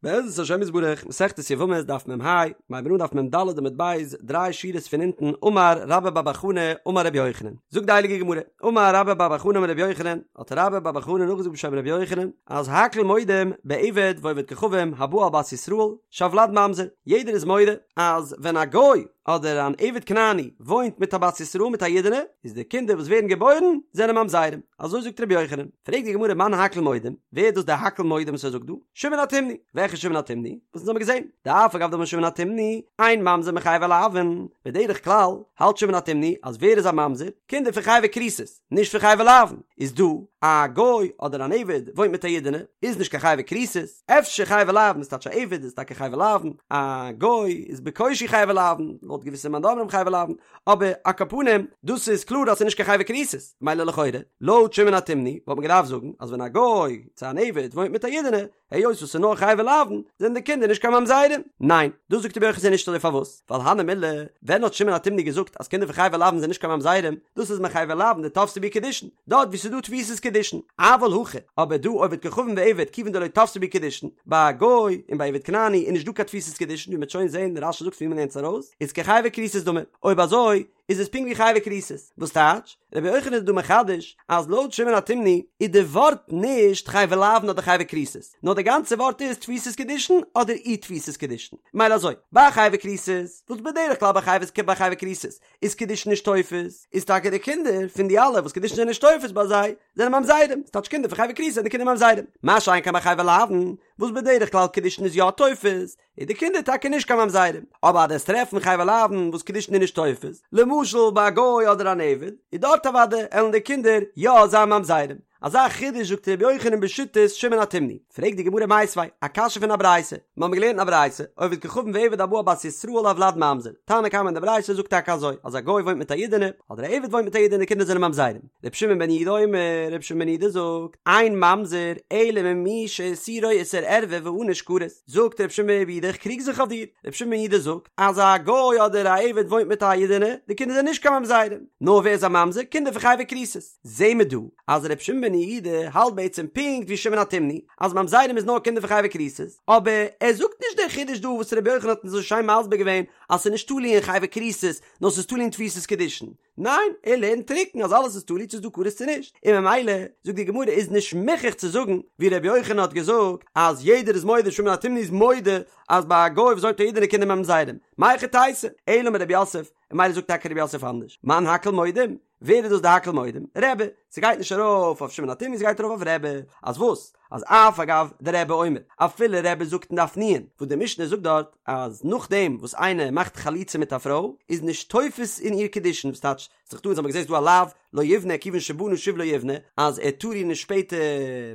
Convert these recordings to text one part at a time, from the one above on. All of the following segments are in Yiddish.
בעזרת השם יתברך, מסכת יבמות דף מ"ה, מיר הייבן אן דף מ"ד עמוד ב', דריי שורות פון אונטן, אמר רבה בר בר חנה אמר רבי יוחנן, זאגט די הייליגע גמרא, אמר רבה בר בר חנה אמר רבי יוחנן, האט רבה בר בר חנה נאכגעזאגט בשם רבי יוחנן, אז הכל מודים בעבד ועובד כוכבים הבא על בת ישראל, שהולד ממזר, יעדער איז מודה אז ווען א גוי אדער אן עבד כנעני וואוינט מיט א בת ישראל מיט א אידענע, איז די קינדער וואס ווערן געבוירן זענען ממזרים, אזוי זאגט רבי יוחנן, פרעגט די גמרא מאן הכל מודים, ווער איז דאס דער הכל מודים וואס ער זאגט דא? שמעון התימני, וועלכע שמעון התימני? וואס אונז האבן געזען, דאף על גב דאמר שמעון התימני, אין ממזר מחייבי לאוין, בדרך כלל האלט שמעון התימני אז ווער איז א ממזר? קינדער פון חייבי כריתות, נישט פון חייבי לאוין, איז דא א גוי אדער אן עבד וואוינט מיט א אידענע, איז נישט קיין חייבי כריתות, אפשר חייבי לאוין איז טייטש א עבד איז טאקע חייבי לאוין, א גוי איז בקושי חייבי לאוין, לויט געוויסע מאן דאמרים חייבי לאוין, אבער על כל פנים דאס איז קלאר אז ס'איז נישט קיין חייבי כריתות, מילא לכאורה, לויט שמעון התימני וואלט מען געדארפט זאגן אז ווען א גוי צו אן עבד וואוינט מיט א אידענע, היות וואס ס'איז נאר חייבי לאוין, זענען די קינדער נישט קיין ממזרים. ניין, דאס זאגט רבי יוחנן ס'איז נישט אזוי פארוואס? ווייל הני מילי, ווען האט שמעון התימני געזאגט אז קינדער פון חייבי לאוין זענען נישט קיין ממזרים, דאס איז מחייבי לאוין דתפסי בהו קידושין, דארט וואו ס'איז דא תפיסת קידושין, אבל הכא, אבער דא עובד כוכבים ועבד כיוון דלא תפסי בהו קידושין, ביי א גוי און ביי עבד כנעני איז נישט דא קיין תפיסת קידושין ווי מ'וועט שוין זעהן, רש"י זאגט פון ווי מ'לערנט עס ארויס, איז כחייבי כריתות דמי, אויב אזוי איז עס פונקט ווי חייבי כריתות, וואס טייטש? רבי יוחנן איז דא מחדש אז לויט שמעון התימני איז די ווארט נישט חייבי לאוין אדער חייבי כריתות, נאר די גאנצע ווארט איז תפיסת קידושין אדער אי תפיסת קידושין, מילא אזוי, ביי חייבי כריתות, וואס בדרך כלל ביי חייבי ביי חייבי כריתות איז קידושין נישט תופס, איז טאקע די קינדער פון די אלע וואס קידושין זענען נישט תופס ביי זיי, זענען ממזרים, ס'טייטש קינדער פון חייבי כריתות זענען די קינדער ממזרים, מה שאין כן ביי חייבי לאוין, וואס בדרך כלל קידושין איז יא תופס, איז די קינדער טאקע נישט קיין ממזרים, אבער אז דו'סט טרעפן חייבי לאוין וואס קידושין איז נישט תופס, למשל ביי א גוי אדער אן עבד, איז דארט אוודאי עלן די קינדער יא זיין ממזרים. אזא חידוש זאגט ר' יוחנן בשיטת שמעון התימני. פרעגט די גמרא מיתיבי, א קשיא פון א ברייתא, מיר האבן געלערנט אין א ברייתא, עובד כוכבים ועבד הבא על בת ישראל הולד ממזר, תנא קמא אין די ברייתא זאגט טאקע אזוי, אז א גוי וואוינט מיט א אידענע, אדער א עבד וואוינט מיט א אידענע די קינדער זענען ממזרים. ר' שמעון בן יהודה אומר, ר' שמעון בן יהודה זאגט, אין ממזר אלא ממי שאיסורו איסור ערווה וענוש כרת. זאגט ר' שמעון בן יהודה איך קריג זיך אויף דיר, ר' שמעון בן יהודה זאגט אז א גוי אדער א עבד וואוינט מיט א אידענע, די קינדער זענען נישט קיין ממזרים, נאר ווער איז א ממזר? קינדער פון חייבי כריתות. זעהן מיר דא אז ר' שמעון בן יהודה האלט בעצם פונקט ווי שמעון התימני אז ממזרים איז נאר קינדער פון חייבי כריתות, אבער ער זאגט נישט דער חידוש דא וואס ר' יוחנן האט אונז אזוי שיין מסביר געווען אז ס'איז נישט תלוי אין חייבי כריתות נאר ס'איז תלוי אין תפיסת קידושין, ניין, ער לערנט טרוקן אז אלעס איז תלוי צו ס'איז דא כרת צו נישט, און ממילא, זאגט די גמרא, איז נישט מוכרח צו זאגן, ווי ר' יוחנן האט געזאגט, אז יעדער איז מודה, שמעון התימני איז מודה, אז ביי א גוי וואס וואוינט מיט א אידענע קינדער ממזרים, מהיכי תיתי, אלא אמר רב יוסף, און ממילא זאגט טאקע רב יוסף אנדערש, מאן הכל מודים, ווער איז דאס די הכל מודים? רבי, ס'גייט נישט ארויף אויף שמעון התימני ס'גייט ארויף אויף רבי, אז וואס? אז אף על גב דרבי אומר, אפילו רבי זאגט אין דף נ', וואס די משנה זאגט דארט אז נאכדעם וואס איינער מאכט חליצה מיט א פרוי איז נישט תופס אין איר קידושין, וואס טייטש ס'איז דא אונז האבן געזען ס'איז דא א לאו לא יבנה כיוון שבנה שוב לא יבנה אז ער טאר איר נישט שפעטער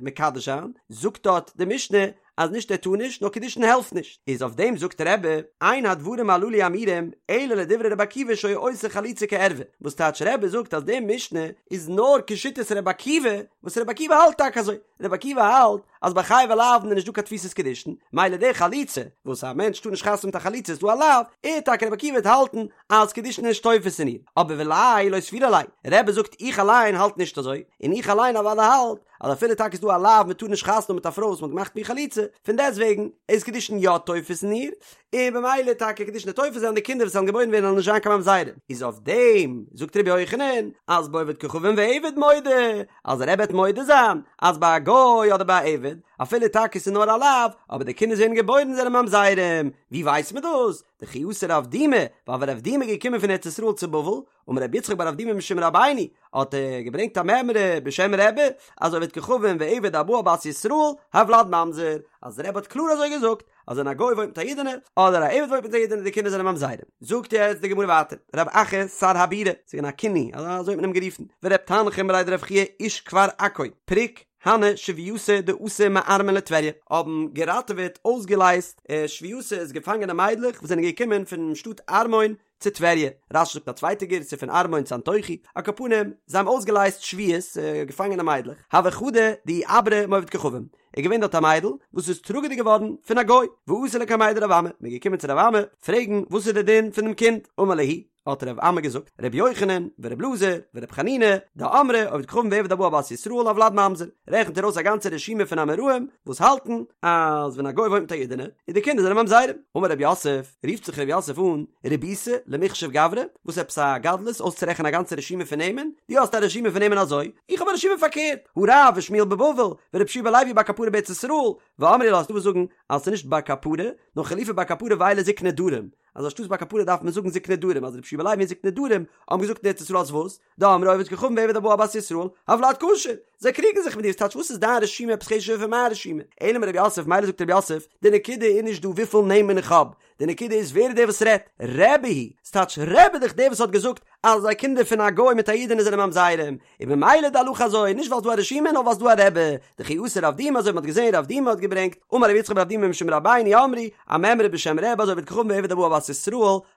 מקדש זיין, זאגט דארט די משנה אז נישט ער טאר נישט נאר קידושין העלפט נישט, איז אויף דעם זאגט רבי, אין הדברים הללו אמורים אלא לדברי רבי עקיבא שהיה עושה חליצה כערווה, וואס טייטש רבי זאגט אז די משנה איז נאר כשיטת רבי עקיבא, וואס רבי עקיבא האלט טאקע אזוי, רבי עקיבא האלט אז ביי חייבי לאוין איז נישט דא קיין תפיסת קידושין, מילא די חליצה, וואס א מענטש טאר נישט חתונה מיט א חלוצה איז דא א לאו, ער טאקע רבי עקיבא וועט האלטן אז קידושין איז נישט תופס אין איר, אבער וליה לא סבירא ליה, רבי זאגט איך אליין האלט נישט אזוי, און איך אליין אוודאי האלט אז אפילו טאקע איז דא א לאו מען טאר נישט חתונה האבן מיט א פרוי וואס מען האט געמאכט מיט איר חליצה, פון דעסטוועגן איז קידושין יא תופס אין איר, און במילא טאקע קידושין איז תופס וועלן די קינדער וואס וועלן געבוירן ווערן וועלן נישט זיין קיין ממזרים, איז אויף דעם זאגט רבי יוחנן אז בעובד כוכבים ועבד מודה, אז רבי וועט מודה זיין אז ביי א גוי אדער ביי א עבד, אפילו טאקע ס'איז נאר א לאו, אבער די קינדער זענען געבוירן זענען ממזרים, ווי ווייסט מען דאס? דכי אתא רב דימי, ווייל ווען רב דימי איז געקומען פון ארץ ישראל צו בבל, אמר רבי יצחק בר אבדימי משום רבינו, האט ער געברענגט א מימרא בשם רבי, אז עובד כוכבים ועבד הבא על בת ישראל, הולד ממזר, אז רבי האט קלאר אזוי געזאגט, אז ווען א גוי וואוינט מיט א אידענע, אדער א עבד וואוינט מיט א אידענע די קינדער זענען ממזרים. זאגט יעצט די גמרא ווייטער, רב אחא שר הבירה, ס'איז געווען א כינוי, אזוי האט מען אים גערופן, ורב תנחום בריה דרב חייא איש כפר עכו, פריק הני שבוייתא דאתו מארמון לטבריה, האבן געראטעוועט, אויסגעלייזט, שבוייתא איז געפאנגענע מיידלעך וואס זענען געקומען פונעם שטאט ארמון צו טבריה, רש"י זאגט א צווייטע גירסא פון ארמון צו אנטוכי, על כל פנים, זיי האבן אויסגעלייזט שבויות, געפאנגענע מיידלעך, הוה חדא דאיעברא מעובד כוכבים, איז געווען דארט א מיידל וואס איז טראגעדיג געווארן פון א גוי, ואתו לקמיה דרב אמי, מען איז געקומען צו רב אמי פרעגן וואס איז די דין פון דעם קינד, אמר להו. האט ר' אמי געזאגט, ר' יוחנן, ור' אלעזר, ור' חנינא, דאמרי עובד כוכבים ועבד הבא על בת ישראל הולד ממזר, רעכנט ער אויס א גאנצע רשימה פון אמוראים וואס האלטן אז ווען א גוי וואוינט מיט א אידענע איז די קינדער זענען ממזרים. אמר רב יוסף, רופט זיך רב יוסף אן, רבית למיחשב גברי, וואס עפעס א גדלות אויסצורעכענען א גאנצע רשימה פון נעמען? דו האסט א רשימה פון נעמען אזוי, איך האב א רשימה פארקערט, הא רב ושמואל בבבל, ורבי יהושע בן לוי בר קפרא בארץ ישראל, ואמרי לה, ס'דא וואס זאגן אז ס'איז נישט בר קפרא, נאר חלופי בר קפרא ואלו זקני דרום, אז אנשטאטס בר קפרא דארף מען זאגן זקני דרום, אז רבי יהושע בן לוי און זקני דרום האבן געזאגט אין ארץ ישראל אז וואס? דאמרי עובד כוכבים ועבד הבא על בת ישראל, הולד כשר! זיי קריגן זיך מיט דיר, ס'טייטש וואס איז דיין רשימה עפעס חשוב'ער פון מיין רשימה? אלא אמר רב יוסף, מילא זאגט רב יוסף, די נקודה איז נישט דא וויפיל נעמען איך האב, די נקודה איז ווער איז דער וואס רעדט, רבי היא, ס'טייטש רבי איז דאך דער וואס האט געזאגט אז די קינדער פון א גוי מיט א אידענע זענען ממזרים, און במילא די הלכה אזוי, נישט ווייל ס'דא א רשימה נאר ווייל ס'דא א רבי, דכי אתא רב דימי אזוי ווי מ'האט געזען רב דימי האט געברענגט, אמר רב יצחק בר אבדימי משום רבינו אמרו, א מימרא בשם רבי אז עובד כוכבים ועבד הבא על בת ישראל,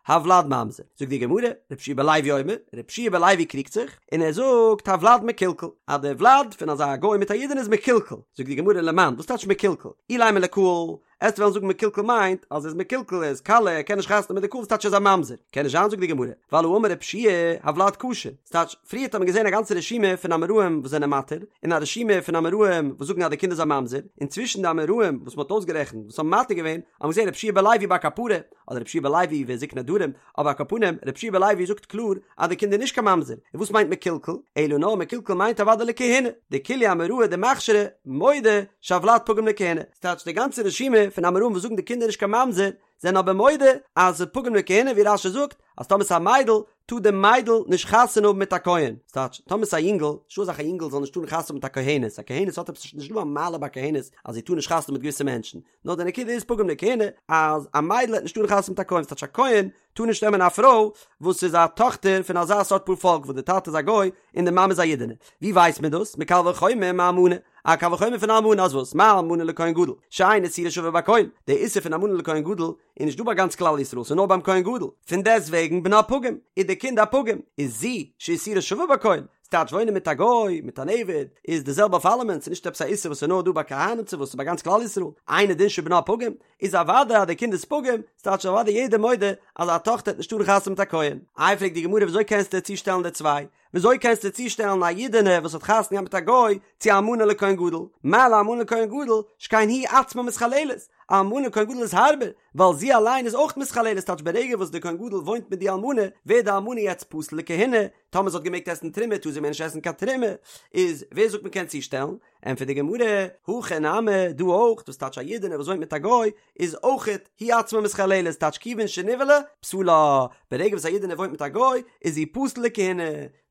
הולד ממזר. זאגט די גמרא, רבי יהושע בן לוי אומר, רבי יהושע בן לוי קריגט זיך, און ער זאגט הולד מקולקל, אז די ולד פון אזא גוי מיט א אידענע איז מקולקל, זאגט די גמרא למאן, וואס טייטש מקולקל? אילימא לקהל, עסט וועלן זאגן מקולקל מיינט אז ער איז מקולקל ער איז קאלע ער קען נישט חתונה מיט די קהל וואס טייטש ער איז א ממזר? קען נישט זיין זאגט די גמרא, ווייל האמר רבי יהושע הולד כשר, ס'טייטש פריערט האט מען געזען א גאנצע רשימה פון אמוראים וואס זענען מתיר, און א רשימה פון אמוראים וואס זאגן אז די קינד איז א ממזר, און צווישן די אמוראים וואס מ'האט אויסגערעכנט וואס האבן מתיר געווען, האט מען געזען רבי יהושע בן לוי בר קפרא, אדער רבי יהושע בן לוי וזקני דרום, אבער על כל פנים, רבי יהושע בן לוי זאגט קלאר אז די קינד איז נישט קיין ממזר, און וואס מיינט מקולקל? אלא נאר מקולקל מיינט אוודאי לכהונה, דכולהו אמוראי דמכשרי מודו שהולד פגום לכהונה, ס'טייטש די גאנצע רשימה פון אמוראים וואס זאגן די קינד איז נישט קיין ממזר, זענען אבער מודה אז ס'איז פגום לכהונה ווי רש"י זאגט אז טאמער ס'איז א מיידל טאר די מיידל נישט חתונה האבן מיט א כהן, ס'טייטש טאמער ס'איז א יונגל, נישטא אזא זאך א יונגל זאל נישט טארן חתונה האבן מיט א כהנת, א כהנת האט עפעס נישט דא א מעלה ביי כהנת אז זי טאר נישט חתונה האבן מיט געוויסע מענטשן, נאר די נקודה איז פגום לכהונה אז א מיידל העט נישט טארן חתונה מיט א כהן, ס'טייטש א כהן טאר נישט נעמען א פרוי וואס איז א טאכטער פון אזא סארט פארפאלק וואס די טאטע איז א גוי און די מאמע איז א אידענע, ווי ווייסט מען דאס? מקל וחומר מאלמנה, א קל וחומר פון אלמנה אז וואס? מה אלמנה לכהן גדול שאין איסורה שווה בכל, די איסור פון אלמנה לכהן גדול איז נישט דא ביי גאנץ כלל ישראל ס'איז נאר ביים כהן גדול, פון דעסט וועגן בנה פגום איז די קינד א פגום, איז זו שאיסורה שווה בכל, ס'טייטש וואוינען מיט א גוי, מיט אן עבד, איז די זעלבע אויף אלעמען, ס'איז נישט עפעס א איסור וואס איז נאר דא ביי כהנים צו וואס ס'איז ביי גאנץ כלל ישראל, אינו דין שבנה פגום, איז אוודאי אז די קינד איז פגום, ס'טייטש אוודאי יעדער מודה אז א טאכטער העט נישט טארן חתונה מיט א כהן. איי פרעגט די גמרא וויאזוי קענסטו צושטעלן די צוויי? וויאזוי קענסטו צושטעלן א אידענע וואס האט חתונה געהאט מיט א גוי צו א אלמנה לכהן גדול? מה לאלמנה לכהן גדול שכן היא עצמה מתחללת, א אלמנה לכהן גדול איז הארבער, ווייל זי אליין איז אויך מתחללת, ס'טייטש ברגע וואס די כהן גדול וואוינט מיט די אלמנה ווערט די אלמנה יעצט פסול לכהונה, טאמער זי האט געמעגט עסן תרומה טאר זי מער נישט עסן קיין תרומה, איז ווער זאגט מען קען צושטעלן? ענטפערט די גמרא, הכא נמי, דא אויך, דאס טייטש א אידענע וואס וואוינט מיט א גוי, איז אויכעט היא עצמה מתחללת, טייטש כיוון שנבעלה, פסולה, ברגע וואס א אידענע וואוינט מיט א גוי, איז זי פסול לכהונה,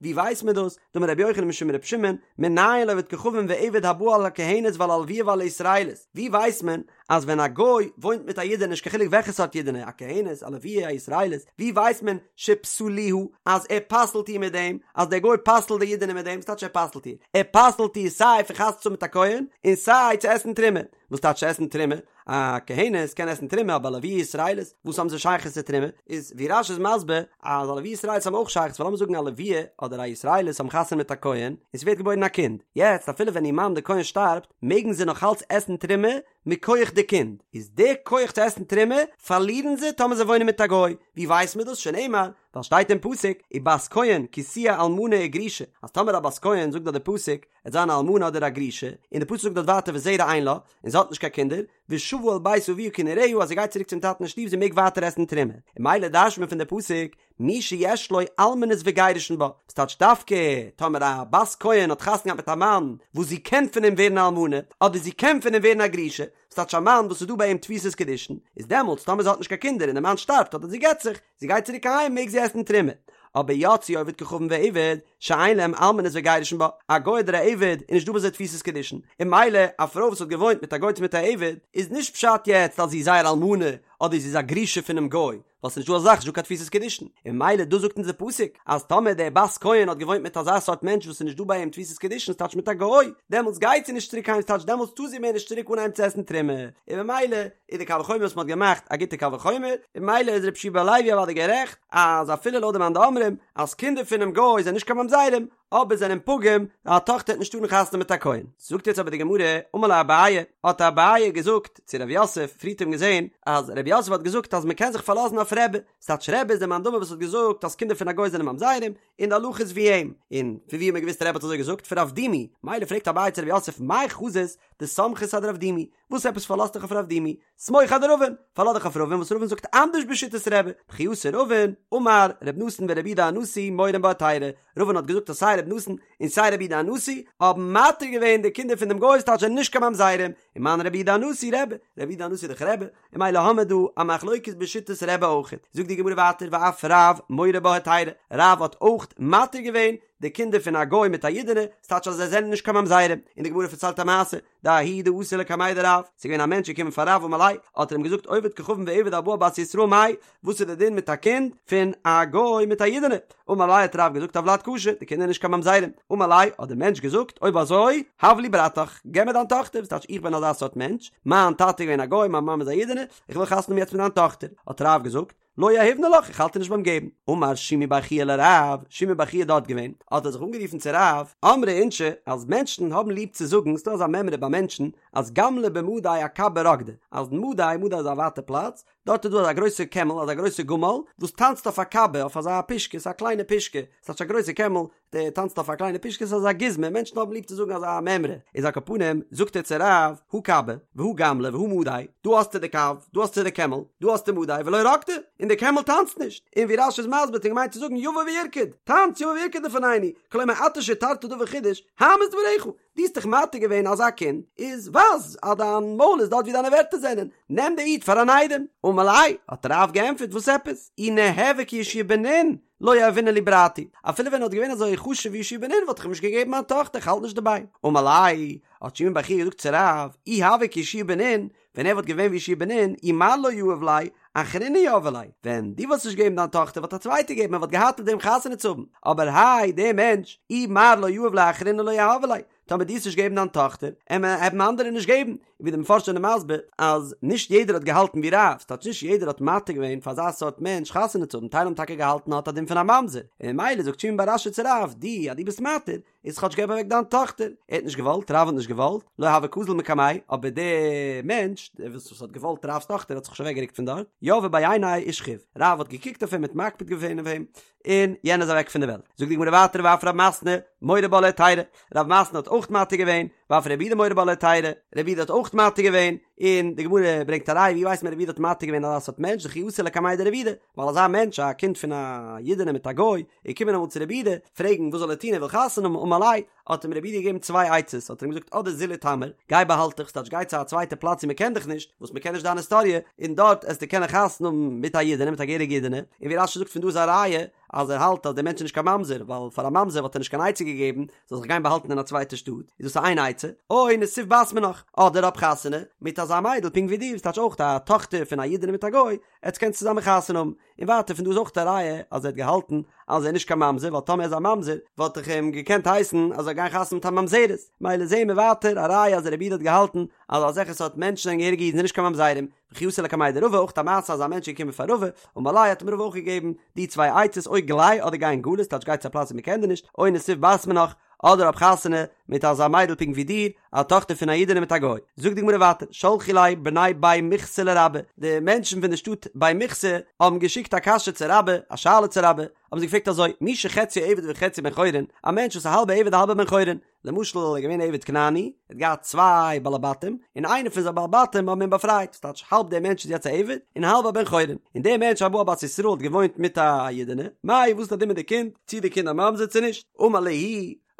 ווי ווייסט מען דאס? דאמר רבי יוחנן משום רבי שמעון, מנין לעובד כוכבים ועבד הבא על הכהנת ועל הלויה ועל הישראלית, ווי ווייסט מען אז ווען א גוי וואוינט מיט א אידענע נישט קיין חילוק וועלכע סארט אידענע, א כהנת, א לויה, א ישראלית, ווי ווייסט מען שפסלוה אז ער פסל'ט איר מיט דעם, אז דער גוי פסל'ט די אידענע מיט דעם, וואס טייטש ער פסל'ט איר? ער פסל'ט איר סיי פון חתונה צו האבן מיט א כהן, און סיי צו עסן תרומה. וואס טייטש עסן תרומה? א כהנת קען עסן תרומה אבער א לויה ישראלית, וואס האבן זיי שייכות צו תרומה? איז ווי רש"י איז מסביר אז א לויה ישראלית האבן אויך שייכות ווייל לאמיר זאגן א לויה אדער א ישראלית האבן חתונה מיט א כהן און ס'ווערט געבוירן א קינד, יעצט אפילו ווען איר מאן די כהן שטארבט מעגן זיי נאך אלץ עסן תרומה מכח די קינד, איז די כח צו עסן תרומה פארלירן זיי טאמער זיי וואוינען מיט א גוי, ווי ווייסט מען דאס? שנאמר, ווייל שטייט אין פסוק, ובת כהן כי תהיה אלמנה וגרושה, אז טאמער א בת כהן זאגט דארט די פסוק, עט זיין א אלמנה אדער א גרושה, און די פסוק זאגט דארט ווייטער וזרע אין לה, און זי האט נישט קיין קינדער, ושבה אל בית אביה כנעוריה אז זי גייט צוריק צום טאטן אין שטוב זי מעג ווייטער עסן תרומה, און ממילא דרש'ט מען פון די פסוק, מי שיש לו אלמנות וגירושין בה, וואס טייטש דווקא טאמער א בת כהן האט חתונה געהאט מיט א מאן וואס זי קען פון אים ווערן א אלמנה, אדער זי קען פון אים ווערן א גרושה, וואס טייטש א מאן וואס איז דא ביי אים תפיסת קידושין, איז דעמאלטס טאמער זי האט נישט קיין קינדער און די מאן שטארבט אדער זי גט זיך, זי גייט צוריק אהיים מעג זי עסן תרומה. אבער יצאו עובד כוכבים ועבד שאין להם אלמנות וגירושין בה, א גוי אדער א עבד איז נישט דא ביי זיי תפיסת קידושין, און ממילא א פרוי וואס האט געוואוינט מיט א גוי צו מיט א עבד, איז נישט פשט יעצט אז זי איז זייער אלמנה אדער זי איז א גרושה פונעם גוי, ווייל ס'נישט דא אזא זאך, נישט דא קיין תפיסת קידושין, און ממילא דא זאגט אונז די פסוק אז טאמער די בת כהן האט געוואוינט מיט אזא סארט מענטש וואס איז נישט דא ביי אים תפיסת קידושין ס'טייטש מיט א גוי, דעמאלטס גייט זי נישט צוריק אהיים ס'טייטש דעמאלטס טאר זי מער נישט צוריק אנהייבן צו עסן תרומה, און ממילא איז די קל וחומר וואס מ'האט געמאכט א גוטע קל וחומר, און ממילא איז רבי יהושע בן לוי אוודאי גערעכט אז אפילו לויט די מאן דאמרים אז קינדער פונעם גוי זענען נישט קיין ממזרים, אבער זענען פגום, א טאכטער וועט נישט טארן חתונה מיט א כהן. זאגט יעצט אבער די גמרא, אמר ליה אביי, האט אביי געזאגט צו רב יוסף, פריערט האט מען געזען אז רב יוסף האט געזאגט אז מען קען זיך פארלאזן אויף רבי, ס'טייטש רבי איז דער מאן דאמר וואס האט געזאגט אז קינדער פון א גוי זענען ממזרים, און די הלכה איז ווי אים, און פון ווי האט מען געוואוסט רבי האט אזוי געזאגט? פון רב דימי, מילא פרעגט אביי צו רב יוסף מאי חזית דסמכת אדרב דימי, וואס עפעס פארלאזט דיך אויף רב דימי? סמוך אדרבין, פארלאז דיך אויף רבין וואס רבין זאגט אנדערש בשיטת רבי, דכי אתא רבין, אמר ר' נתן ורבי יהודה הנשיא מורין בה היתירא, רבין האט געזאגט אז סיי ר' נתן און סיי רבי יהודה הנשיא האבן מתיר געווען די קינדער פון דעם גוי ס'טייטש זענען נישט קיין ממזרים, ומאן רבי יהודה הנשיא רבי, רבי יהודה הנשיא איז דאך רבי, און מילא האמער דא א מחלוקת בשיטת רבי אויכעט, זאגט די גמרא ווייטער ואף רב מורה בה היתירא, רב האט אויך מתיר געווען די קינדער פון א גוי מיט א אידענע, ס'טייטש אז זיי זענען נישט קיין ממזרים, און די גמרא פארציילט א מעשה, דההוא דאתא לקמיה דרב, ס'איז געווען א מענטש געקומען פאר רב אמר ליה, האט ער אים געזאגט עובד כוכבים ועבד הבא על בת ישראל מאי, וואס איז די דין מיט א קינד פון א גוי מיט א אידענע? אמר ליה האט רב געזאגט הולד כשר, די קינדער נישט קיין ממזרים, אמר ליה האט דער מענטש געזאגט אויב אזוי הב לי ברתך, געב מיר דיין טאכטער, וואס טייטש איך בין אזא סארט מענטש, מיין טאטע איז געווען א גוי מיין מאמע איז א אידענע, איך וויל חתונה האבן יעצט מיט דיין טאכטער, האט רב געזאגט, לא יהיבנא לך, איך האלט דיר נישט ביים געבן. אמר שימי בר חייא לרב, שימי בר חייא איז דארט געווען, האט ער זיך אנגערופן צו רב, אמרי אינשי, אז מענטשן האבן ליב צו זאגן, ס'דא אזא מימרא ביי מענטשן, אז גמלא במדי אכבא רקדא, אז מדי, מדי איז א ווייטע פלאץ, דארט איז דא אזא גרויסע קעמל, אזא גרויסע גמל, וואס טאנצט אויף א כבא, אויף אזא פושקע, ס'איז א קליינע פושקע, ס'טייטש א גרויסע קעמל, דער טאנצט אויף א קליינע פושקע ס'איז אזא גוזמא, מענטשן האבן ליב צו זאגן אזא מימרא, איז על כל פנים, זאגט ער צו רב, הא כבא, והא גמלא, והא מדי, דא האסטו די קב, דא האסטו די קעמל, דא האסטו מדי, ולא רקדי, און די קעמל טאנצט נישט, און ווי רש"י איז מסביר האט ער געמיינט צו זאגן יבא וירקוד, טאנץ יבא וירקוד לפנינו, כלומר אתה שהתרת דבר חידוש, האמת דבריך, דו האסט דאך מתיר געווען אזא קינד, איז ווייז אז דיין מויל איז דארט ווי דיינע ווערטער זענען, נעם די איד פאר אן איידעם. אמר ליה, האט רב געענטפערט, וואס עפעס? אי ניהוה כיהושע בן נון, לא יהבינן ליה ברתי, אפילו ווען ער וואלט געווען אזוי חשוב ווי יהושע בן נון וואלט איך אים נישט געגעבן מיין טאכטער, איך האלט נישט דערביי. אמר ליה, האט שימי בר חייא געזאגט צו רב, אי הוה כיהושע בן נון, ווען ער וואלט געווען ווי יהושע בן נון, אי מר לא יהב ליה, אחרינא יהבי ליה, ווען דו וואלסט נישט געגעבן דיין טאכטער וואלט א צווייטער געגעבן ער וואלט געהאט מיט וועם חתונה צו האבן, אבער האי דער מענטש, אי מר לא יהב ליה אחרינא לא יהבי ליה, טאמער דו וועסט נישט געבן דיין טאכטער, עמער וועלן אנדערע נישט געבן, און ווי די מפרשים זענען מסביר אז נישט יעדער האט געהאלטן ווי רב, ס'טייטש נישט יעדער האט מתיר געווען פאר אזא סארט מענטש חתונה צו האבן, טייל האבן טאקע געהאלטן האט א דין פון א ממזר, און ממילא זאגט שימי בר אשי צו רב, דו אז דו ביסט מתיר, איז כאטש געב אוועק דיין טאכטער, ער האט נישט געוואלט, רב האט נישט געוואלט, לא הוה קאזיל מקמיה, אבער דער מענטש, דער וואס האט געוואלט רב'ס טאכטער האט זיך נישט אוועק גערוקט פון דארט, יהביה בי עיניה ושכיב, רב האט געקוקט אויף אים האט מקפיד געווען אויף אים, און יענער איז אוועק פון די וועלט. זאגט די גמרא ווייטער ואף רב מתנה מורה בה להיתירא, רב מתנה האט אויך מתיר געווען, ואף רבי יהודה מורה בה להיתירא, רבי יהודה האט אויך מתיר געווען, און די גמרא ברענגט א ראיה ווי ווייסט מען רבי יהודה האט מתיר געווען אזא סארט מענטש דכי אתא לקמיה דרבי יהודה, ווייל אזא מענטש א קינד פון א אידענע מיט א גוי, איז געקומען אמאל צו רבי יהודה פרעגן וואס זאל ער טון ער וויל חתונה האבן אמר ליה, האט אים רבי יהודה געגעבן צוויי עצות, האט ער אים געזאגט אדער זיל איטמר, גיי באהאלט דיך, ס'טייטש גיי צו א צווייטע פלאץ ווי מ'קען דיך נישט, וואס מ'קען נישט דיין היסטאריע, און דארט עסטו קענען חתונה האבן מיט א אידענע, מיט א געהעריגע אידענע, און ווי רש"י זאגט פון דא איז א ראיה אז ער האלט אז דער מענטש איז נישט קיין ממזר, ווייל פאר א ממזר וואלט ער נישט קיין עצה געגעבן, זאל זיך גיין באהאלטן אין א צווייטע שטאט, איז דאס איין עצה, או נסיב בת מינך, אדער האב חתונה מיט אזא מיידל פונקט ווי דיר, וואס טייטש אויך א טאכטער פון א אידענע מיט א גוי, עטס קענטס צוזאמען חתונה האבן. און ווייטער פון דא איז אויך א ראיה אז ער האט געהאלטן אז ער איז נישט קיין ממזר ווייל טאמער ער איז א ממזר וואלט איך אים געקענט הייסן אז ער זאל גיין חתונה מיט א ממזרת מילא זעהן מיר ווייטער א ראיה אז רבי יהודה האט געהאלטן אז אזעלכע סארט מענטשן זענען געהעריגע אידן זענען נישט קיין ממזרים וכי אתא לקמיה דרבא אויך א מעשה אז א מענטש איז געקומען פאר רבא אמר ליה האט אים רבא אויך געגעבן די צוויי עצות או גלי אדער גיי אין גלות טייטש גיי צו א פלאץ ווי מען קען דיר נישט או נסיב בת מינך אדער האב חתונה מיט אזא מיידל פונקט ווי דיר, א טאכטער פון א אידענע מיט א גוי. זאגט די גמרא ווייטער, שלחו ליה בני בי מוכסא לרבה, די מענטשן פון די שטאט בי מוכסא האבן געשיקט א קשיא צו רבה, א שאלה צו רבה, האבן זיי געפרעגט אזוי, מי שחציו עבד וחציו בן חורין, א מענטש וואס איז א האלבע עבד א האלבע בן חורין, למשל ער איז געווען א עבד כנעני, ער האט געהאט צוויי בעלי בתים, און איינער פון זיינע בעלי בתים האבן אים באפרייט, ס'טייטש האלב דער מענטש איז יעצט א עבד, און האלב א בן חורין, און דער מענטש הבא על בת ישראל האט געוואוינט מיט א אידענע, מאי וואס איז די דין מיט די קינד, צי די קינד א ממזר צו נישט? אמר להו,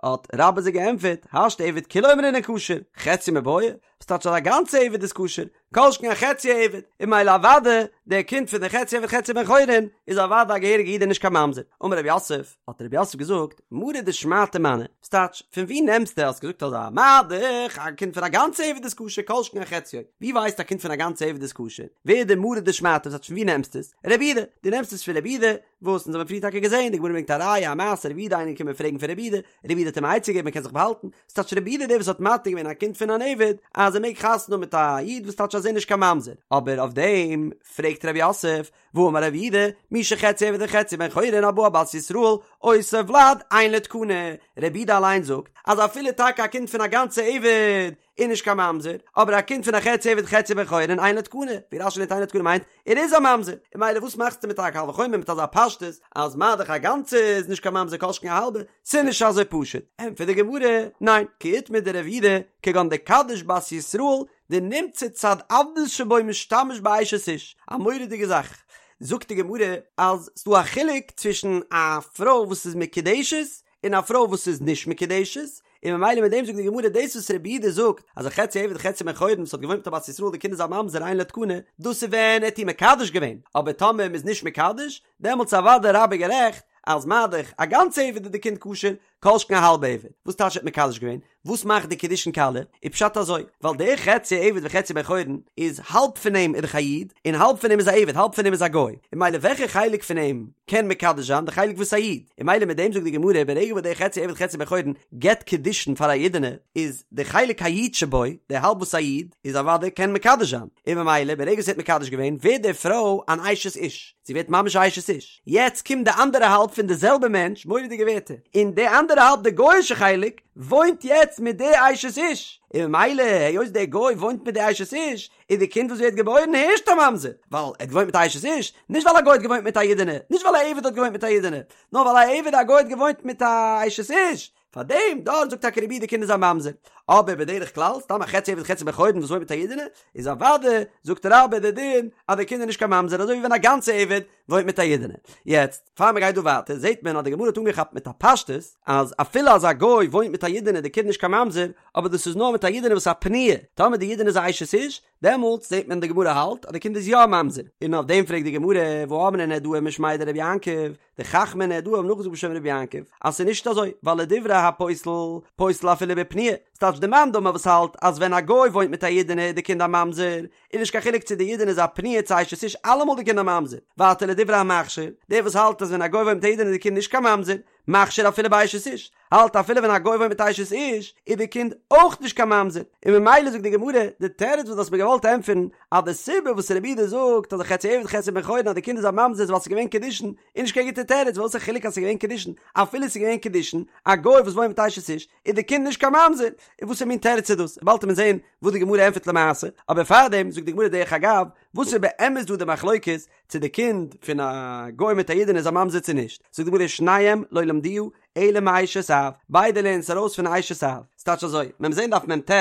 האט רבה זיי געענטפערט, השתא עבד כולו אמרינן כשר, חציו מיבעיא? וואס טייטש אז א גאנצע עבד איז כשר? כל שכן א חצי עבד, און ממילא אוודאי דער קינד פון די חצי עבד חצי בן חורין איז אוודאי א געהעריגע איד און נישט קיין ממזר. אמר רב יוסף, האט רב יוסף געזאגט, מרא דשמעתא מני, וואס טייטש, פון וואו נעמסטו האסט געזאגט אזא מה דאך א קינד פון א גאנצע עבד איז כשר כל שכן א חציו, ווי ווייסטו א קינד פון א גאנצע עבד איז כשר? ווער איז דער מרא דשמעתא וואס טייטש פון וואו נעמסטו עס? רבי יהודה, דו נעמסט עס פון רבי יהודה, וואס אונז האבן פריער טאקע געזען, די גמרא ברענגט א ראיה א מעשה רבי יהודה איינער געקומען פרעגן פון רבי יהודה, רבי יהודה האט אים א עצה געגעבן מען קען זיך באהאלטן, ס'טייטש רבי יהודה דער וואס האט מתיר געווען א קינד פון אן עבד אז ער מעג חתונה האבן מיט א איד וואס טייטש אז. אז ער איז נישט קיין ממזר, אבער אויף דעם פרעגט רב יוסף, והאמר רב יהודה, מי שחציו עבד וחציו בן חורין הבא על בת ישראל, אותו ולד אין לו תקנה, רב יהודה אליין זאגט אז אפילו טאקע א קינד פון א גאנצע עבד איז נישט קיין ממזר, אבער א קינד פון א חצי עבד חצי בן חורין אין לו תקנה, ווי רש"י לערנט אין לו תקנה מיינט ער איז א ממזר, און ממילא וואס מאכסטו מיט א קל וחומר מיט אזא פשטות אז מה דאך א גאנצע איז נישט קיין ממזר כל שכן א האלבע, ס'איז נישט אזוי פשוט, ענטפערט די גמרא, ניין, כי איתמר דרב יהודה, כגון דקדיש בת ישראל, דנמצא צד עבדות שבו משתמש באשת איש, א מורא'דיגע זאך, זאגט די גמרא אז ס'דא א חילוק צווישן א פרוי וואס איז מקודשת און א פרוי וואס איז נישט מקודשת, און ממילא מיט דעם זאגט די גמרא דאס וואס רבי יהודה זאגט אז א חצי עבד חצי בן חורין וואס האט געוואוינט מיט א בת ישראל די קינד איז א ממזר אין לו תקנה, דאס איז ווען ער האט איר מקדש געווען, אבער טאמער מ'איז נישט מקדש, דעמאלטס איז אוודאי רבה גערעכט אז מה דאך א גאנצע עבד איז די קינד כשר, כל שכן א האלבע עבד, וואס טייטש ער האט מקדש געווען? וואס מאכט די קידושין קאליע? איז פשט אזוי, ווייל דער חצי עבד וחצי בן חורין איז האלב פון אים איז דאך א איד, און האלב פון אים איז א עבד, האלב פון אים איז א גוי, און ממילא וועלכע חלק פון אים קען מקדש זיין? די חלק וואס איז א איד, און ממילא מיט דעם זאגט די גמרא, ברגע וואס דער חצי עבד חצי בן חורין געבט קידושין פאר א אידענע, איז די חלק האיד שבו, די האלב וואס איז א איד, איז אוודאי קען מקדש זיין, און ממילא ברגע וואס ער האט מקדש געווען, ווערט די פרוי אן אשת איש, זי ווערט ממש א אשת איש. יעצט קומט די אנדערע האלב פון די זעלבע מענטש, מורא'דיגע ווערטער, און די אנדערע האלב די גוי'אישע חלק, וואוינט יעצט מיט די אשת איש, און ממילא היות דער גוי וואוינט מיט די אשת איש, איז די קינד וואס ווערט געבוירן הערשט א ממזר, ווייל ער האט געוואוינט מיט א אשת איש, נישט ווייל א גוי האט געוואוינט מיט א אידענע, נישט ווייל א עבד האט געוואוינט מיט א אידענע, נאר ווייל א עבד א גוי האט געוואוינט מיט א אשת איש, פאר דעם דארט זאגט טאקע רבי די קינד איז א ממזר, אבער בדרך כלל סתם א חצי עבד חצי בן חורין וואס וואוינט מיט א אידענע, איז אוודאי זאגט רבה די דין אז די קינד איז נישט קיין ממזר אזוי ווי ווען א גאנצע עבד וואוינט מיט א אידענע. יעצט פאר מען גייט דא ווייטער זעט מען אז די גמרא האט אנגעכאפט מיט א פשטות אז אפילו אז א גוי וואוינט מיט א אידענע איז די קינד נישט קיין ממזר, אבער דאס איז נאר מיט א אידענע וואס איז א פנויה, טאמער די אידענע איז א אשת איש, דעמאלטס זעט מען די גמרא האלט אז די קינד איז יא א ממזר, און אויף דעם פרעגט די גמרא, והאמרי נהרדעי משמיה דרבי יעקב, די חכמי נהרדעא האבן נאכגעזאגט בשם רבי יעקב אז ס'איז נישט אזוי, ווייל לדברי הפוסל, פוסל אפילו בפנויה, ס'טייטש די מאן דאמר וואס האלט אז ווען א גוי וואוינט מיט א אידענע איז די קינד א ממזר, איז נישט קיין חילוק צו די אידענע איז א פנויה צו אשת איש אלעמאל די קינד א ממזר, ווייטער לדברי המכשיר, דער וואס האלט אז ווען א גוי וואוינט מיט א אידענע איז די קינד נישט קיין ממזר, מכשיר אפילו באשת איש, האלט אפילו ווען א גוי וואוינט מיט אשת איש איז די קינד אויך נישט קיין ממזר, און ממילא זאגט די גמרא, די תירוץ וואס דו האסט מיר געוואלט ענטפערן, אז די סיבה וואס רבי יהודה זאגט אז א חצי עבד חצי בן חורין אז די קינד איז א ממזר איז ווייל ס'איז געווען קידושין, איז נישט קיין גוטע תירוץ, וואס איז א חילוק אז ס'איז געווען קידושין, אפילו ס'איז געווען קידושין, א גוי וואס וואוינט מיט אשת איש, איז די קינד נישט קיין ממזר, און וואסער מין תירוץ איז דאס, באלד וועט מען זען וואס די גמרא ענטפערט למעשה, אבער פארדעם זאגט די גמרא דרך אגב, וואס איז באמת דא די מחלוקת, צו די קינד פון א גוי מיט א אידענע איז א ממזר צו נישט, זאגט די גמרא שניהם לא למדוה אלא מאשת אב, ביידע לערנען עס ארויס פון אשת אב, ס'טייטש אזוי, מען וועט זען דף מ"ט,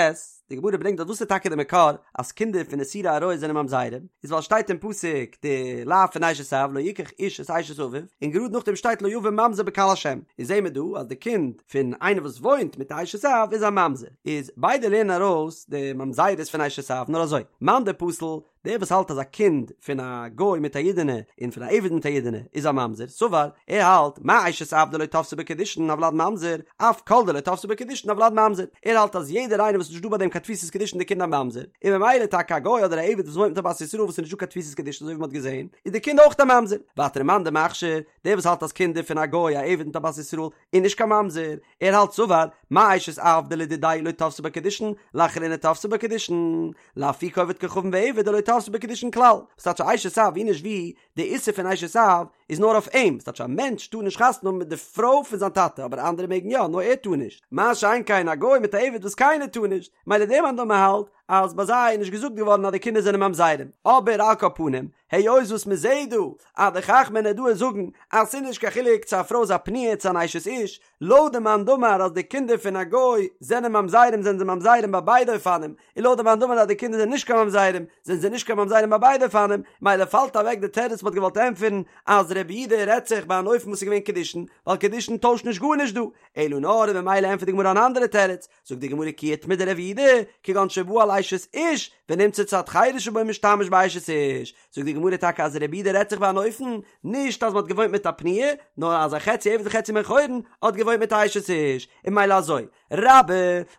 די גמרא ברענגט דארט וואס איז טאקע די מקור אז קינדער פון איסורי עריות זענען ממזרים, איז ווייל שטייט אין פסוק די לאו פון אשת אב לא יקח איש את אשת אביו, און גראד נאכדעם שטייט לא יבא ממזר בקהל השם, איז זעהן מיר דא אז די קינד פון איינער וואס וואוינט מיט א אשת אב איז א ממזר, איז ביידע לערנען ארויס די ממזרות פון אשת אב, נאר אזוי, מאן דפסיל דער וואס האלט אז א קינד פון א גוי מיט א אידענע און פון א עבד מיט א אידענע איז א ממזר, סבר, ער האלט, מה אשת אב דלא תפסי בה קידושין הולד ממזר, אף כל דלא תפסי ביה קידושין הולד ממזר, ער האלט אז יעדער איינער וואס איז נישט דא ביי דעם קיין תפיסת קידושין די קינד א ממזר, און ממילא טאקע א גוי אדער א עבד וואס וואוינט מיט א בת ישראל וואס איז נישט דא קיין תפיסת קידושין אזוי ווי מען האט געזען, איז די קינד אויך א ממזר. ווייטער מאן דמכשיר, דער וואס האלט אז קינדער פון א גוי א עבד מיט א בת ישראל איז נישט קיין ממזר, ער האלט סבר, מה אשת אב דלדידיה לא תפסי בה קידושין, לאחריני תפסי בה קידושין, לאפוקי עובד כוכבים ועבד דלא תפסי ביה קידושין כלל, וואס טייטש א אשת אב ווי נישט ווי, די איסור פון אשת אב איז נאר אויף אים, ס'טייטש א מענטש טאר נישט חתונה האבן מיט די פרוי פון זיין טאטע אבער אנדערע מעגן יא נאר ער טאר נישט, מה שאין כן א גוי מיט א עבד וואס קיינער טאר נישט, מילא דער מאן דאמר האלט אז ביי זיי איז נישט געזאגט געווארן אז די קינדער זענען ממזרים, אבער על כל פנים, היות וואס מען זעהט דא אז די חכמי נהרדעא זאגן אז ס'איז נישט קיין חילוק צו א פרוי איז א פנויה צו אן אשת איש, לויט די מאן דאמר אז די קינדער פון א גוי זענען ממזרים זענען זיי ממזרים ביי ביידע אופנים, און לויט די מאן דאמר אז די קינדער זענען נישט קיין ממזרים זענען זיי נישט קיין ממזרים ביי ביידע אופנים, מילא פאלט אוועק די תירוץ מ'האט געוואלט ענטפערן אז רבי יהודה רעדט זיך ביי אן אופן וואס איז געווען קידושין, ווייל קידושין טוישט נישט גארנישט דא, אלא נאר און ממילא ענטפערט די גמרא אן אנדערע תירוץ, זאגט די גמרא כי איתמר דרב יהודה, כגון שבא על אשת איש, ונמצא צד חירות שבו משתמש באשת איש, זאגט די גמרא טאקע אז רבי יהודה רעדט זיך ביי אן אופן, נישט אז מען האט געוואוינט מיט א פנויה, נאר אז א חצי עבד וחצי בן חורין האט געוואוינט מיט א אשת איש, און מילא אזוי. רבה,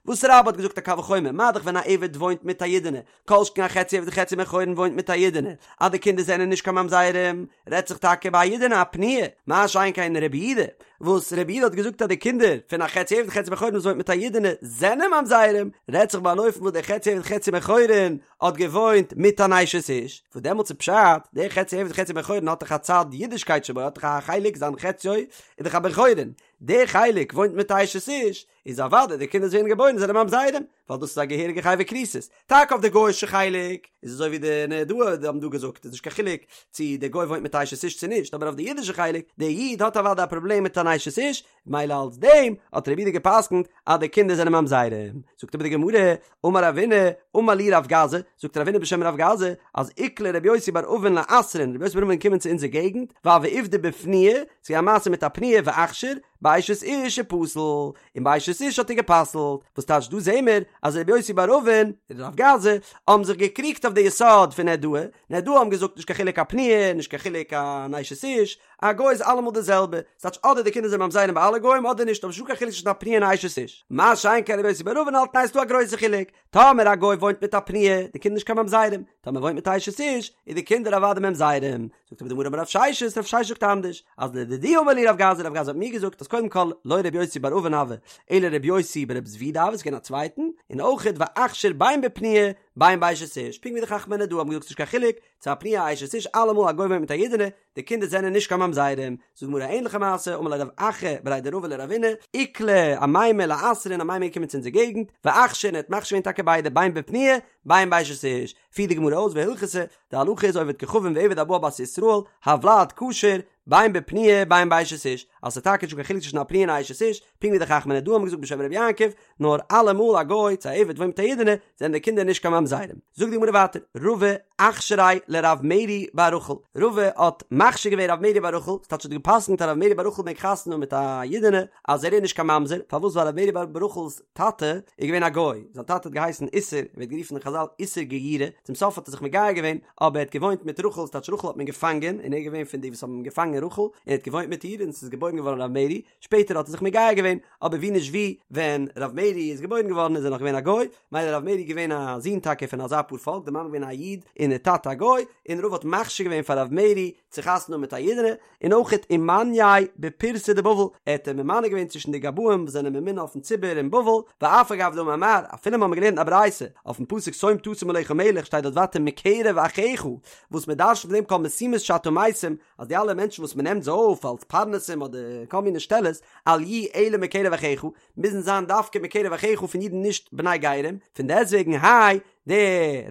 וואס רבה האט געזאגט א קל וחומר, מה דאך ווען א עבד וואוינט מיט א אידענע, כל שכן א חצי עבד חצי בן חורין וואוינט מיט א אידענע, אז די קינדער זענען נישט קיין ממזרים, רעדט זיך טאקע ביי א אידענע א פנויה, מה שאין כן רבי יהודה, וואס רבי יהודה האט געזאגט אז די קינדער פון א חצי עבד חצי בן חורין וואס וואוינט מיט א אידענע זענען ממזרים, רעדט זיך ביי אן אופן וואס דער חצי עבד חצי בן חורין האט געוואוינט מיט אן אשת איש, וואס דעמאלטס איז פשט, דער חצי עבד חצי בן חורין האט דאך א צד אידישקייט שבו, האט דאך א חלק זיין חציו איז דאך א בן חורין, דער חלק וואוינט מיט א אשת איש, איז אוודאי די קינדער וואס ווערן געבוירן זענען ממזרים, ווייל דאס איז א געהעריגע חייבי כריתות. טאקע אויף די גוי'אישע חלק איז אזוי ווי די נהרדעא האבן דא געזאגט איז נישט קיין חילוק צו דער גוי וואוינט מיט א אשת איש צו נישט, אבער אויף די אידישע חלק, דער איד האט אוודאי א פראבלעם מיט אן אשת איש, מילא אלס דעם האט רבי יהודה גע'פסק'נט אז די קינדער זענען ממזרים. זאגט אבער די גמרא, אמר רבינא, אמר לי רב גזא, זאגט רבינא בשם רב גזא, אז איקלע רבי יוסי בר אבין לאתרין, רבי יוסי בר אבין געקומען צו אונזער געגנט, והוה עובדא בפנויה, ס'איז געווען א מעשה מיט א פנויה ואכשר, באשת איש ופסיל, און באשת איש האט ער גע'פסל'ט, וואס טייטש דא זעהן מיר אז רבי יוסי בר אבין און רב גזא האבן זיך געקריגט אויף די יסוד פון נהרדעא, נהרדעא האבן געזאגט נישט קיין חילוק א פנויה, נישט קיין חילוק אן אשת איש, א גוי איז אלעמאל די זעלבע, ס'טייטש אדער די קינדער זענען ממזרים ביי אלע גוים אדער נישט, אבער נישטא קיין חילוק צווישן א פנויה און א אשת איש. מה שאין כן רבי יוסי בר אבין האלט ניין ס'דא א גרויסע חילוק, טאמער א גוי וואוינט מיט א פנויה, די קינדער נישט קיין ממזרים, טאמער וואוינט מיט א אשת איש, איז די קינדער אוודאי ממזרים. זאגט אבער די גמרא אמר רב ששת, רב ששת זאגט אנדערש, אז לדידי אמר לי רב גזא, רב גזא האט מיר געזאגט אז קודם כל לא רבי יוסי בר אבין הוה, אלא רבי יוסי ברב זבידא הוה, ס'איז געווען א צווייטן, און אויכעט ואכשר בין בפנויה בין באשת איש, פונקט ווי די חכמי נהרדעא האבן געזאגט ס'נישט קיין חילוק, צו א פנויה א אשת איש אלעמאל א גוי וואוינט מיט א אידענע, די קינדער זענען נישט קיין ממזרים, זאגט די גמרא א ענליכע מעשה, אמר ליה רב אחא בריה דרבא לרבינא, איקלע אמימר לאתרין, אמימר איז געקומען צו אונזער געגנט, ואכשר און ער האט מכשיר געווען טאקע ביידע בין בפנויה בין באשת איש, פירט די גמרא אויס והלכתא, די הלכה איז עובד כוכבים ועבד הבא על בת ישראל, הולד כשר, בין בפנויה בין באשת איש, אז ס'איז טאקע נישטא קיין חילוק צווישן א פנויה און א אשת איש, פונקט ווי די חכמי נהרדעא האבן געזאגט בשם רבי יעקב, נאר אלעמאל א גוי צו א עבד וואוינט מיט א אידענע, זענען די קינדער נישט קיין ממזרים. זאגט די גמרא ווייטער, רבא אכשריה לרב מרי בר רחל, רבא האט מכשיר געווען רב מרי בר רחל, ס'טייטש האט גע'פסק'נט אז רב מרי בר רחל מעג חתונה האבן מיט א אידענע, אז ער איז נישט קיין ממזר, פארוואס ווייל רב מרי בר רחל'ס טאטע איז געווען א גוי, זיין טאטע האט געהייסן איסר, ער ווערט גערופן אין חזל איסר גיורא, צום סוף האט ער זיך מגייר געווען, אבער ער האט געוואוינט מיט רחל, ס'טייטש רחל האט מען געפאנגען, און ער איז געווען פון די וואס האבן געפאנגען רחל, און ער האט געוואוינט מיט איר, און ס'איז געבוירן געווארן רב מרי, שפעטער האט ער זיך מגייר געווען, אבער ווי נישט ווי, ווען רב מרי איז געבוירן געווארן איז ער נאך געווען א גוי, מילא רב מרי איז געווען א זון טאקע פון אזא פאר פאלק, די מאמע געווען א איד און די טאטע א גוי, און רבא האט מכשיר געווען פאר רב מרי צו חתונה האבן מיט א אידענע, און אויכעט ומנייה בפורסי דבבל, ער האט אים ממנה געווען צווישן די גבאים וואס זענען ממונה אויפן ציבור אין בבל, ואף על גב דאמר מר, אפילו מ'האמיר געלערנט א ברייתא, אויפן פסוק שום תשים עליך מלך שטייט דארט ווייטער מקרב אחיך, וואס מ'דרש'נט פון דעם כל משימות שאתה משים, אז די אלע מענטשן וואס מ'נעמט זיי אויף אלס פרנסים אדער כל מיני שטעלעס, אל יהו אלא מקרב אחיך, מוזן זיין דווקא מקרב אחיך פון אידן נישט בני גרים, פון דעסטוועגן האי דער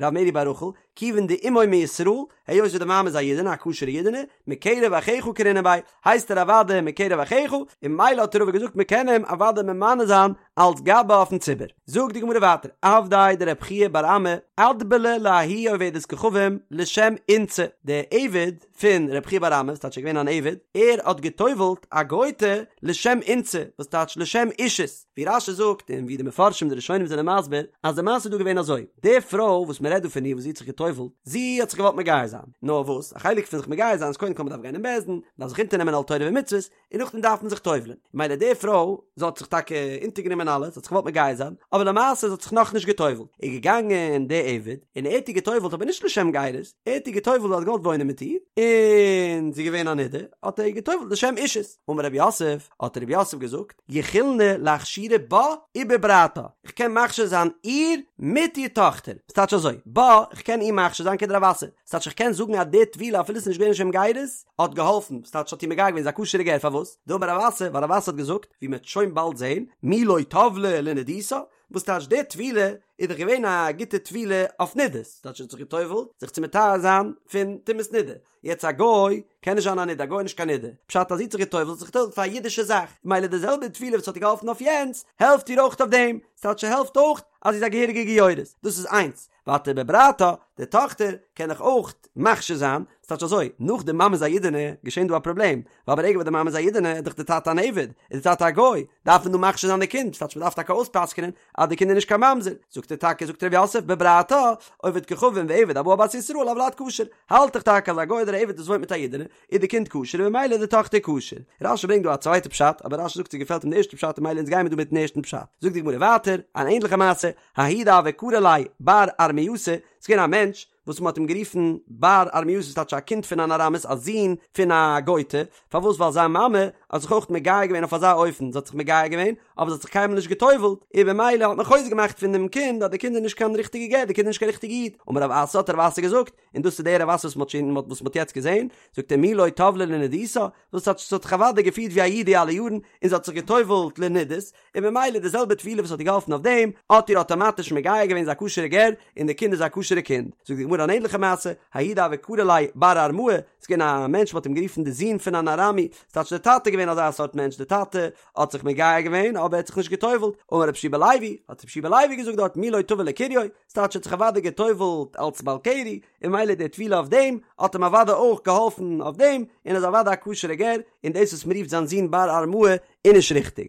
רב מרי בר רחל, כיוון דאמו מישראל, היות ווי די מאמע איז א אידענע, א כשר'ע אידענע, מקרב אחיך קרינן ביה, הייסט ער אוודאי מקרב אחיך, און ממילא האט רבא געזאגט מ'קען אים אוודאי ממנה זיין אלס גבאי אויפן ציבור. זאגט די גמרא ווייטער, עבדיה דרב חייא בר אמי, אטבלה לההיא עובדת כוכבים לשם אינתתא, דער עבד פון רב חייא בר אמי, וואס טייטש ער איז געווען אן עבד, ער האט גע'טובל'ט א גוי'טע לשם אינתתא, וואס טייטש לשם אישות, ווי רש"י זאגט און ווי די מפרשים די ראשונים זענען מסביר, אז די מעשה איז דא געווען אזוי, די פרוי וואס מען רעדט דא פון איר וואס זי האט זיך גע'טובל'ט, זי האט זיך געוואלט מגייר זיין, נאר וואס, א חלק פון זיך מגייר זיין איז קודם כל מען דארף גיין אין בית דין, מען דארף זיך אונטערנעמען עול תורה ומצוות, און נאכדעם דארף מען זיך טובל'ען, מילא די פרוי, זי האט זיך טאקע אונטערגענומען אלעס, זי האט זיך געוואלט מגייר זיין, אבער למעשה זי האט זיך נאכנישט געטובל'ט, איז געגאנגען די עבד, און ער האט איר געטובל'ט אבער נישט לשם גירות, ער האט איר געטובל'ט ווייל ער האט געוואלט וואוינען מיט איר, און זי איז געווען א נידה, האט ער איר געטובל'ט לשם אישות. אמר רב יוסף, האט רב יוסף געזאגט, יכילנא לאכשורי בה ובברתה, איך קען מכשיר זיין איר מיט איר טאכטער, ס'טייטש אזוי, בה, איך קען איר מכשיר זיין כדרב אסי, ס'טייטש איך קען זאגן אז די טבילה אפילו ס'איז נישט געווען לשם גירות, האט געהאלפן, ס'טייטש האט איר מגייר געווען, זי איז א כשר'ע גר, פארוואס? דאמר רב אסי, ווייל רב אסי האט געזאגט, ווי מ'וועט שוין באלד זען, מי לא טבלה לנידותה, וואס טייטש די טבילה איז דאך געווען א גוטע טבילה אויף נידות, ס'טייטש זי האט זיך גע'טובל'ט זיך צו מטהר זיין פון טומאת נידה, יעצט א גוי קען נישט זיין א נידה, א גוי איז נישט קיין נידה, פשט אז זי האט זיך גע'טובל'ט האט זיך גע'טובל'ט פאר א אידישע זאך, ממילא די זעלבע טבילה וואס האט איר געהאלפן אויף יענץ, העלפט איר אויך אויף דעם, ס'טייטש ס'העלפט אויך אז זי איז א געהעריגע גיורת, דאס איז איינס. ווייטער בברתה, די טאכטער קען איך אויך מכשיר זיין, ס'טייטש אזוי, נאך די מאמע איז א אידענע, געשען דא א פראבלעם, ווייל ברגע וואס די מאמע איז א אידענע איז דאך די טאטע אן עבד, איז די טאטע א גוי, דארף מען דא מכשיר זיין די קינד, ס'טייטש מ'דארף טאקע אויספסק'נען אז די קינד איז נישט קיין ממזר, זאגט ער טאקע, זאגט ר' יוסף, בברתה, עובד כוכבים ועבד הבא על בת ישראל הולד כשר, האלט איך טאקע אז א גוי אדער א עבד וואס וואוינט מיט א אידענע, איז די קינד כשר און ממילא איז די טאכטער כשר. רש"י ברענגט דא א צווייטע פשט, אבער רש"י זאגט ס'געפעלט אים די ערשטע פשט און ממילא אונז גיימיר דא מיטן ערשטן פשט. זאגט די גמרא ווייטער, אן ענדליכע מעשה, ההוא דהוה קרי ליה בר ארמייתא, ס'איז געווען א מענטש וואס מ'האט אים גערופן בר ארמייתא ס'טייטש א קינד פון אן ארמית א זון פון א גוי'טע, פארוואס ווייל זיין מאמע האט זיך אויך מגייר געווען אויף אזא אופן, זי האט זיך מגייר געווען אבער זי האט זיך קיינמאל נישט גע'טובל'ט, און במילא האט מען חוזק געמאכט פון דעם קינד אז די קינד איז נישט קיין ריכטיגע גר, די קינד איז נישט קיין ריכטיגע איד, אמר רב אסי האט רב אסי געזאגט, און דאס איז דער רב אסי וואס מ'האט שוין וואס מ'האט יעצט געזען, זאגט ער מי לא טבלה לנידותה, וואס האט זי האט זיך אוודאי געפירט ווי א איד די אלע יארן, און זי האט זיך גע'טובל'ט לנידות, און ממילא די זעלבע טבילה וואס האט איר געהאלפן אויף דעם, האט איר אטאמאטיש מגייר געווען זי א כשר'ע גר, און די קינד איז א כשר'ע קינד. זאגט די גמרא אן ענליכע מעשה, ההוא דהוה קרי ליה בר ארמאה, ס'איז געווען א מענטש מ'האט אים גערופן די זון פון אן ארמי, ס'טייטש די טאטע איז געווען אזא סארט מענטש, די טאטע האט זיך מגייר געווען אבער ער האט זיך נישט גע'טובל'ט, אמר רבי יהושע בן לוי, האט רבי יהושע בן לוי געזאגט דארט מי לא טבל לקריו, ס'טייטש ער האט זיך אוודאי גע'טובל'ט אלס בעל קרי, און ממילא די טבילה אויף דעם האט אים אוודאי אויך געהאלפן אויף דעם, און איז אוודאי א כשר'ע גר, און דאס וואס מ'רופט זיין זון בר ארמאה איז נישט ריכטיג.